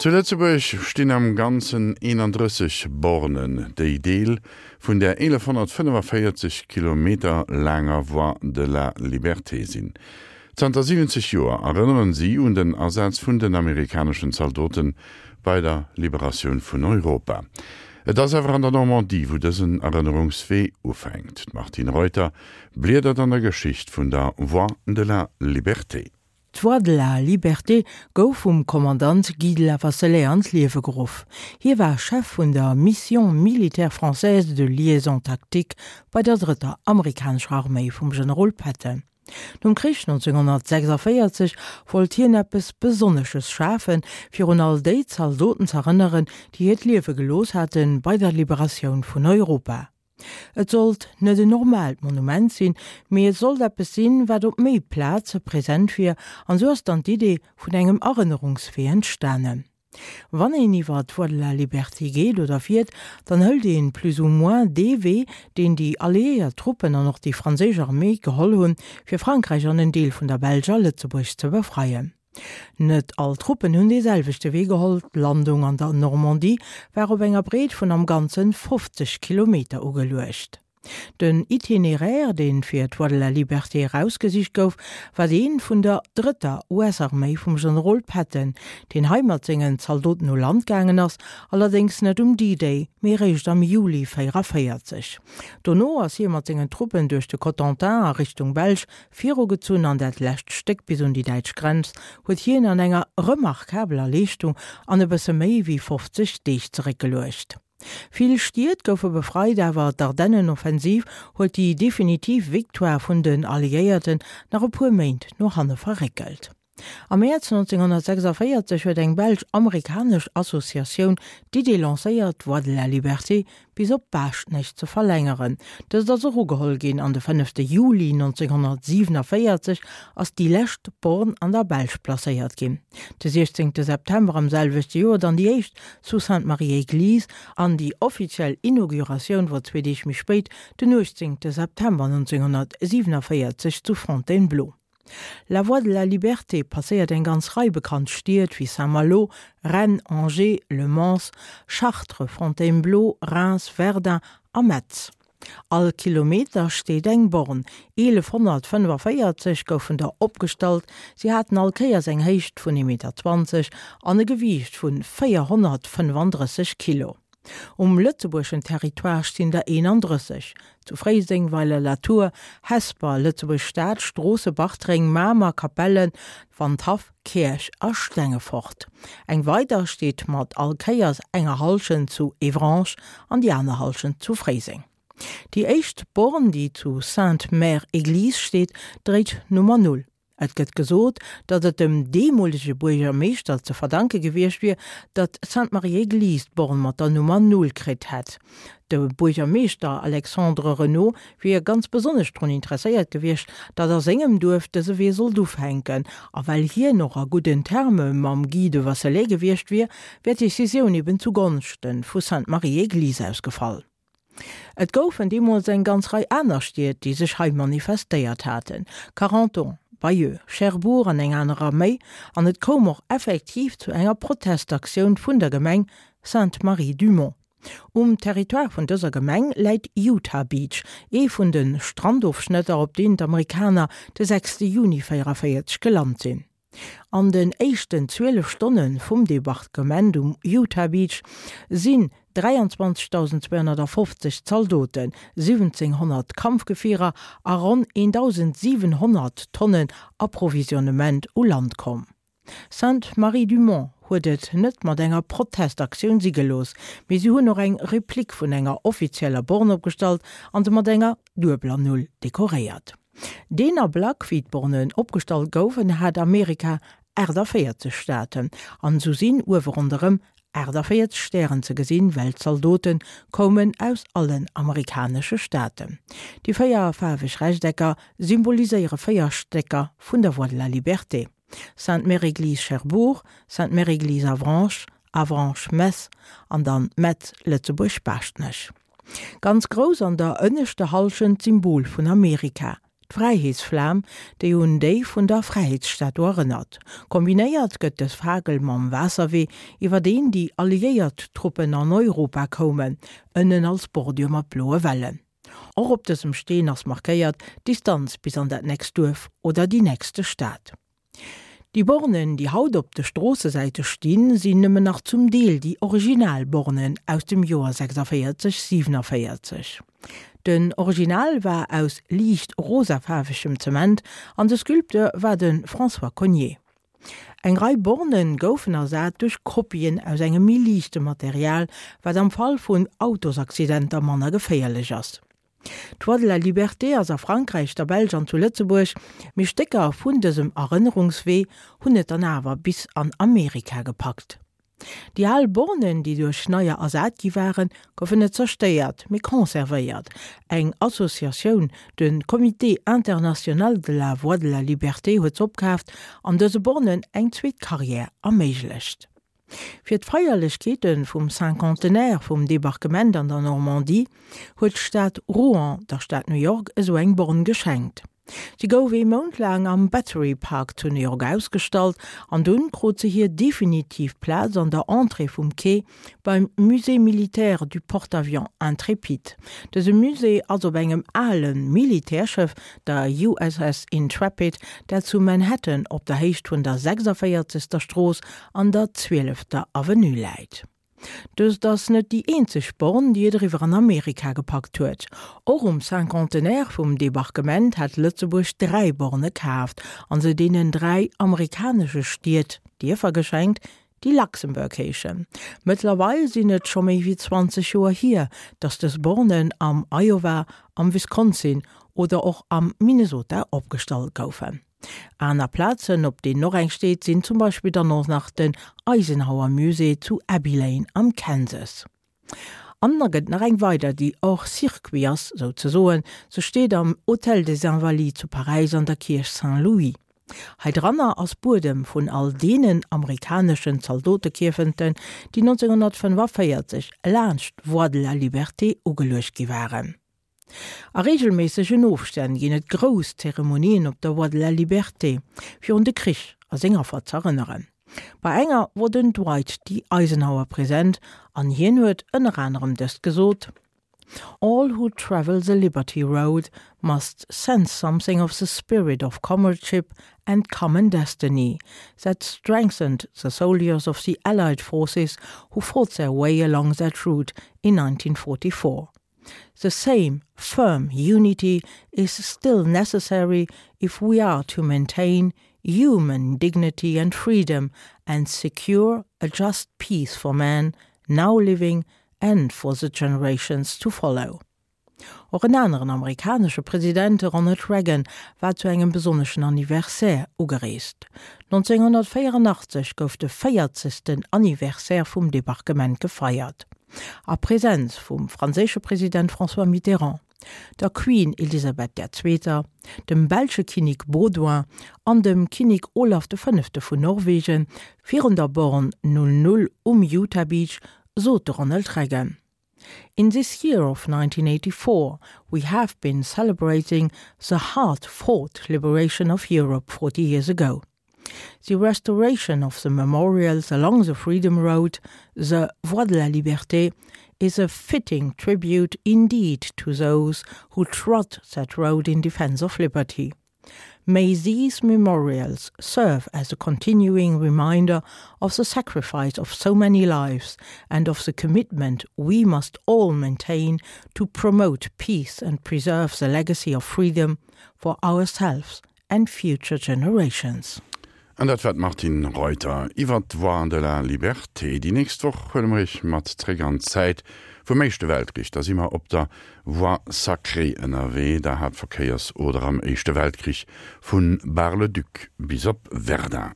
Zu Lëtzebuerg stinn am Ganzen 31 Bornen, déi Deel vun där 1145 Kilometer laanger Voie de la Liberté sinn. Zanter 70 Joer erënneren si un den Asaz vun den amerikaneschen Zaldote bei der Liberatioun vun Europa. Et ass awer an der Normandie, wou dësen Erënnerungswee ufänkt. D'Martine Reuter bliedert an der Geschicht vun der Voie de la Liberté. D'Voie de la Liberté gouf vum Kommandant Guy de Lavasselet an d'Liewe geruff. Hie war Chef vun der Mission militaire française de liaison tactique bei der drëtter amerikanescher Arméi vum Generol Patton. Nom Krich 1946 wollt hien eppes Besonnesches schafen, fir un all déi Zaldoten z'erënneren, déi hiert Liewe gelooss hate bei der Liberatioun vun Europa. Et sollt net en normaalt Monument sinn, mee et sollt eppes sinn, wat op méi Plaze present wier, an esou ass dann d'Idee vun engem Erënnerungswee entstanen. Wann een iwwer d'Voie de la Liberté geet oder fiert, dann hëlt een plus ou moins dee Wee, deen déi alliéiert Truppen an och déi franséisch Arméi geholl hunn, fir Frankräich an en Deel vun der Belsch a Lëtzebuerg ze befreien. Net all Truppen hunn dee selwechte Wee geholl, d'Landung an der Normandie war op enger Breet vun am Ganzen 50 Kilometer ugeluecht. Den Itinéraire, dee fir d'Voie de la Liberté erausgesicht gouf, war dee vun der drëtter US-Arméi vum Generol Patton, deen hei mat sengen Zaldoten u Land gaangen ass, allerdéngs net um D-Day, mee eréischt am Juli 44. Dono ass hie mat sengen Truppen duerch de Cotentin a Richtung Belsch Virugezunn an dat lescht Stéck bis un déi däitsch Grenz huet hien an enger remarkabeler Leeschtung an e bësse méi wéi 50 Deeg zeréckgeluecht. Vill Stied goufe befreit, awer d'Ardennenoffensiv huet déi definitiv Victoire vun den Alliéierten nach e puer Méint no hanne verréckelt. Am Mäerz 1946 huet eng belsch-amerikanesch Associatioun d'Idee lancéiert, d'Voie de la Liberté bis op Baaschtnech ze verlängeren. Dëst ass och ugeholl ginn an de fënnefte Juli 1947 ass déi lescht Born an der Belsch placéiert ginn. De 16 September am selwechte Joer dann déi éischt zu Sainte-Marie-Église an déi offiziell Inauguratioun wor zwee Deeg méi spéit, den 18 September 1947 zu Fontainebleau. La Voie de la Liberté passéiert eng ganz Rei bekannt Stied wéi Saint-Malo, Rennes, Angers, Le Mans, Chartres, Fontainebleau, Reims, Verdun a Metz. All Kilometer steet eng Born, 1145 goufen der opgestallt, si haten all Kéiers eng Héicht vun 1,20 Meter an e Gewiicht vu 435 Kilo. Um lëtzebuergeschen Territoire stinn der 31, zu Fréiseng, Weiler-la-Tour, Hesper, Lëtzebuerg-Stad, Stroosse, Bartreng, Mamer, Capellen, Wandhaff, Käerch a Stengefort. Eng weider steet mat all Kéiers enger Hallschent zu Evrange an déi aner Hallschent zu Fréiseng. Déi éischt Born, déi zu Sainte-Mère-Église steet, dréit d'Nummer Null. Et gëtt gesot, datt et dem deemolege Buergermeeschter ze verdanke gewiescht wier, datt Sainte-Marie-Église d'Born mat der Nummer Null kritt hätt. De Buergermeeschter Alexandre Renaud wier ganz besonnesch drun interesséiert gewiescht, datt a sengem Duerf dëse Wee sollt ufänken. A well hien och a gudden Terme mam Guy de Wasselay gewiescht wier, wär d'Decisioun eben zu Gonschte vu Sainte-Marie-Église ausgefall. Et goufen deemools eng ganz Rei aner Stied, déi sech hei manifestéiert haten, Carentan, Bayeux, Cherbourg an eng anerer méi, an et koum och effektiv zu enger Protestaktioun vun der Gemeng Sainte-Marie-du-Mont. Um Territoire vun dëser Gemeng läit Utah Beach, ee vun de Strandofschnëtter, op deen d'Amerikaner de 6 Juni 44 gelant sinn. An den éischten 12 Stonne vum Debarquement um Utah Beach sinn 23.250 Zaldoten, 1.700 Kampfgefierer a ronn 1.700 Tonnen Approvisionnement u Land komm. Sainte-Marie-du-Mont huet et net mat enger Protestaktioun si gelooss, mee si hunn och eng Replik vun enger offizieller Born opgestallt an se mat enger duebeler Null dekoréiert. Deen Ablack, wéi d'Bornen opgestallt goufen, hat Amerika 48 Staaten, an esou sinn uewe ronderëm 48 Stären ze gesinn, well d'Zaldote koumen aus allen amerikanesche Staaten. Déi 4 faarweg Rechtecker symboliséiere 4 Stécker vun der Voie de la Liberté, Sainte-Mère-Église Cherbourg, Sainte-Mère-Église Avranches, Avranches Metz an dann Metz Lëtzebuerg Baaschtnech. Ganz grouss an der ënneschter Hallschent d'Symbol vun Amerika. D'Fräiheetsflam, déi un déi vun der Fräiheetsstatu erënnert. Kombinéiert gëtt dës Fakel mam Waasserwee, iwwer deen déi alliéiert Truppen an Europa koumen, ënnen als Bordür mat bloe Wellen. Och op dësem Steen ass markéiert d'Distanz bis an dat nächst Duerf oder déi nächste Stad. Déi Bornen, déi haut op de Stroossesäite stinn, sinn nëmmen nach zum Deel déi original Bornen aus dem Joer 46, 47. Den Original war aus liicht rosafaarwegem Zement an de Sculpteur war de François Cogniet. Eng Rei Borne goufen ersat duerch Kopien aus engem méi liichte Material, wat am Fall vun Autosaccidenter manner geféierlech ass. D'Voie de la Liberté ass a Frankräich, der Belsch an zu Lëtzebuerg, mee Stécker vun dësem Erënnerungswee hunn et dann awer bis an Amerika gepackt. Déi al Bornen, déi duerch neier ersat gi waren, goufen net zerstéiert, mee conservéiert. Eng Associatioun, de Comité International de la Voie de la Liberté, huet s'opkaaft an dëse Bornen eng zweet Carrière erméiglecht. Fir d'Feierlechkeete vum Cinquantenaire vum Debarquement an der Normandie huet d'Stad Rouen der Stad New York esou eng Born geschenkt. Si gouf ee Mount laang am Battery Park zu New York ausgestallt an dunn krut se hir definitiv Plaz an der Entrée vum Quai beim Musée militaire du porte-avions Intrépide. Dëse Musée ass op engem ale Militärschëff, der USS Intrepid, dat zu Manhattan op der Héicht vun der 46. Strooss an der zwielefter Avenue läit. Dëst ass net déi eenzeg Born, déi et eriwwer an Amerika gepackt huet. Och um Cinquantenaire vum Debarquement hat Lëtzebuerg 3 Borne kaaft an se deenen 3 amerikanesche Stied, Dierfer geschenkt, déi Luxembourg heeschen. Mëttlerweil sinn et scho méi wéi 20 Joer hier, datt dës Bornen am Iowa, am Wisconsin oder och am Minnesota opgestallt goufen. Aner Plazen, op deenen och eng steet, sinn zum Beispill dann och nach den Eisenhower Musée zu Abilene am Kansas. An da gëtt nach eng weider, déi hors circuit ass, souzesoen. Se steet am Hôtel des Invalides zu Paräis an der Kierch Saint-Louis. Hei dranner ass Buedem vun all deenen amerikaneschen Zaldotekierfenten, déi 1945 laanscht d'Voie de la Liberté ugeluecht gi waren. A reegelméissegen Ofstänn ginn et grouss Zeremonien op der Voie de la Liberté, fir un de Krich a seng Affer z'erënneren. Bei enger wor den Dwight D. Eisenhower present an hien huet ënner anerem dëst gesot, All who travel the Liberty Road must sense something of the spirit of comradeship and common destiny that strengthened the soldiers of the Allied forces who fought their way along that route in 1944. The same firm unity is still necessary if we are to maintain human dignity and freedom and secure a just peace for man now living and for the generations to follow. Och en aneren amerikanesche President, de Ronald Reagan, war zu engem besonneschen Anniversaire ugereest. 1984 gouf de véierzegsten Anniversaire vum Debarquement gefeiert. A Presenz vum franséische President François Mitterrand, der Queen Elisabeth der Zweeter, dem belsche Kinnek Baudouin an dem Kinnek Olaf de Fënnefte vun Norwegen, virun der Born 00 um Utah Beach, sot de Ronald Reagan, In this year of 1984 we have been celebrating the hard-fought liberation of Europe 40 years ago. The restoration of the memorials along the Freedom Road, the Voie de la Liberté, is a fitting tribute indeed to those who trod that road in defense of liberty. May these memorials serve as a continuing reminder of the sacrifice of so many lives and of the commitment we must all maintain to promote peace and preserve the legacy of freedom for ourselves and future generations. An dat war d'Martine Reuter iwwer d'Voie de la Liberté. Déi nächst Woch huele mer Iech mat zréck an d'Zäit vum Éischte Weltkrich. Da si mer op der Voie Sacrée ënnerwee, der Haaptverkéiersoder am Éischte Weltkrich vu Bar-le-Duc bis op Verdun.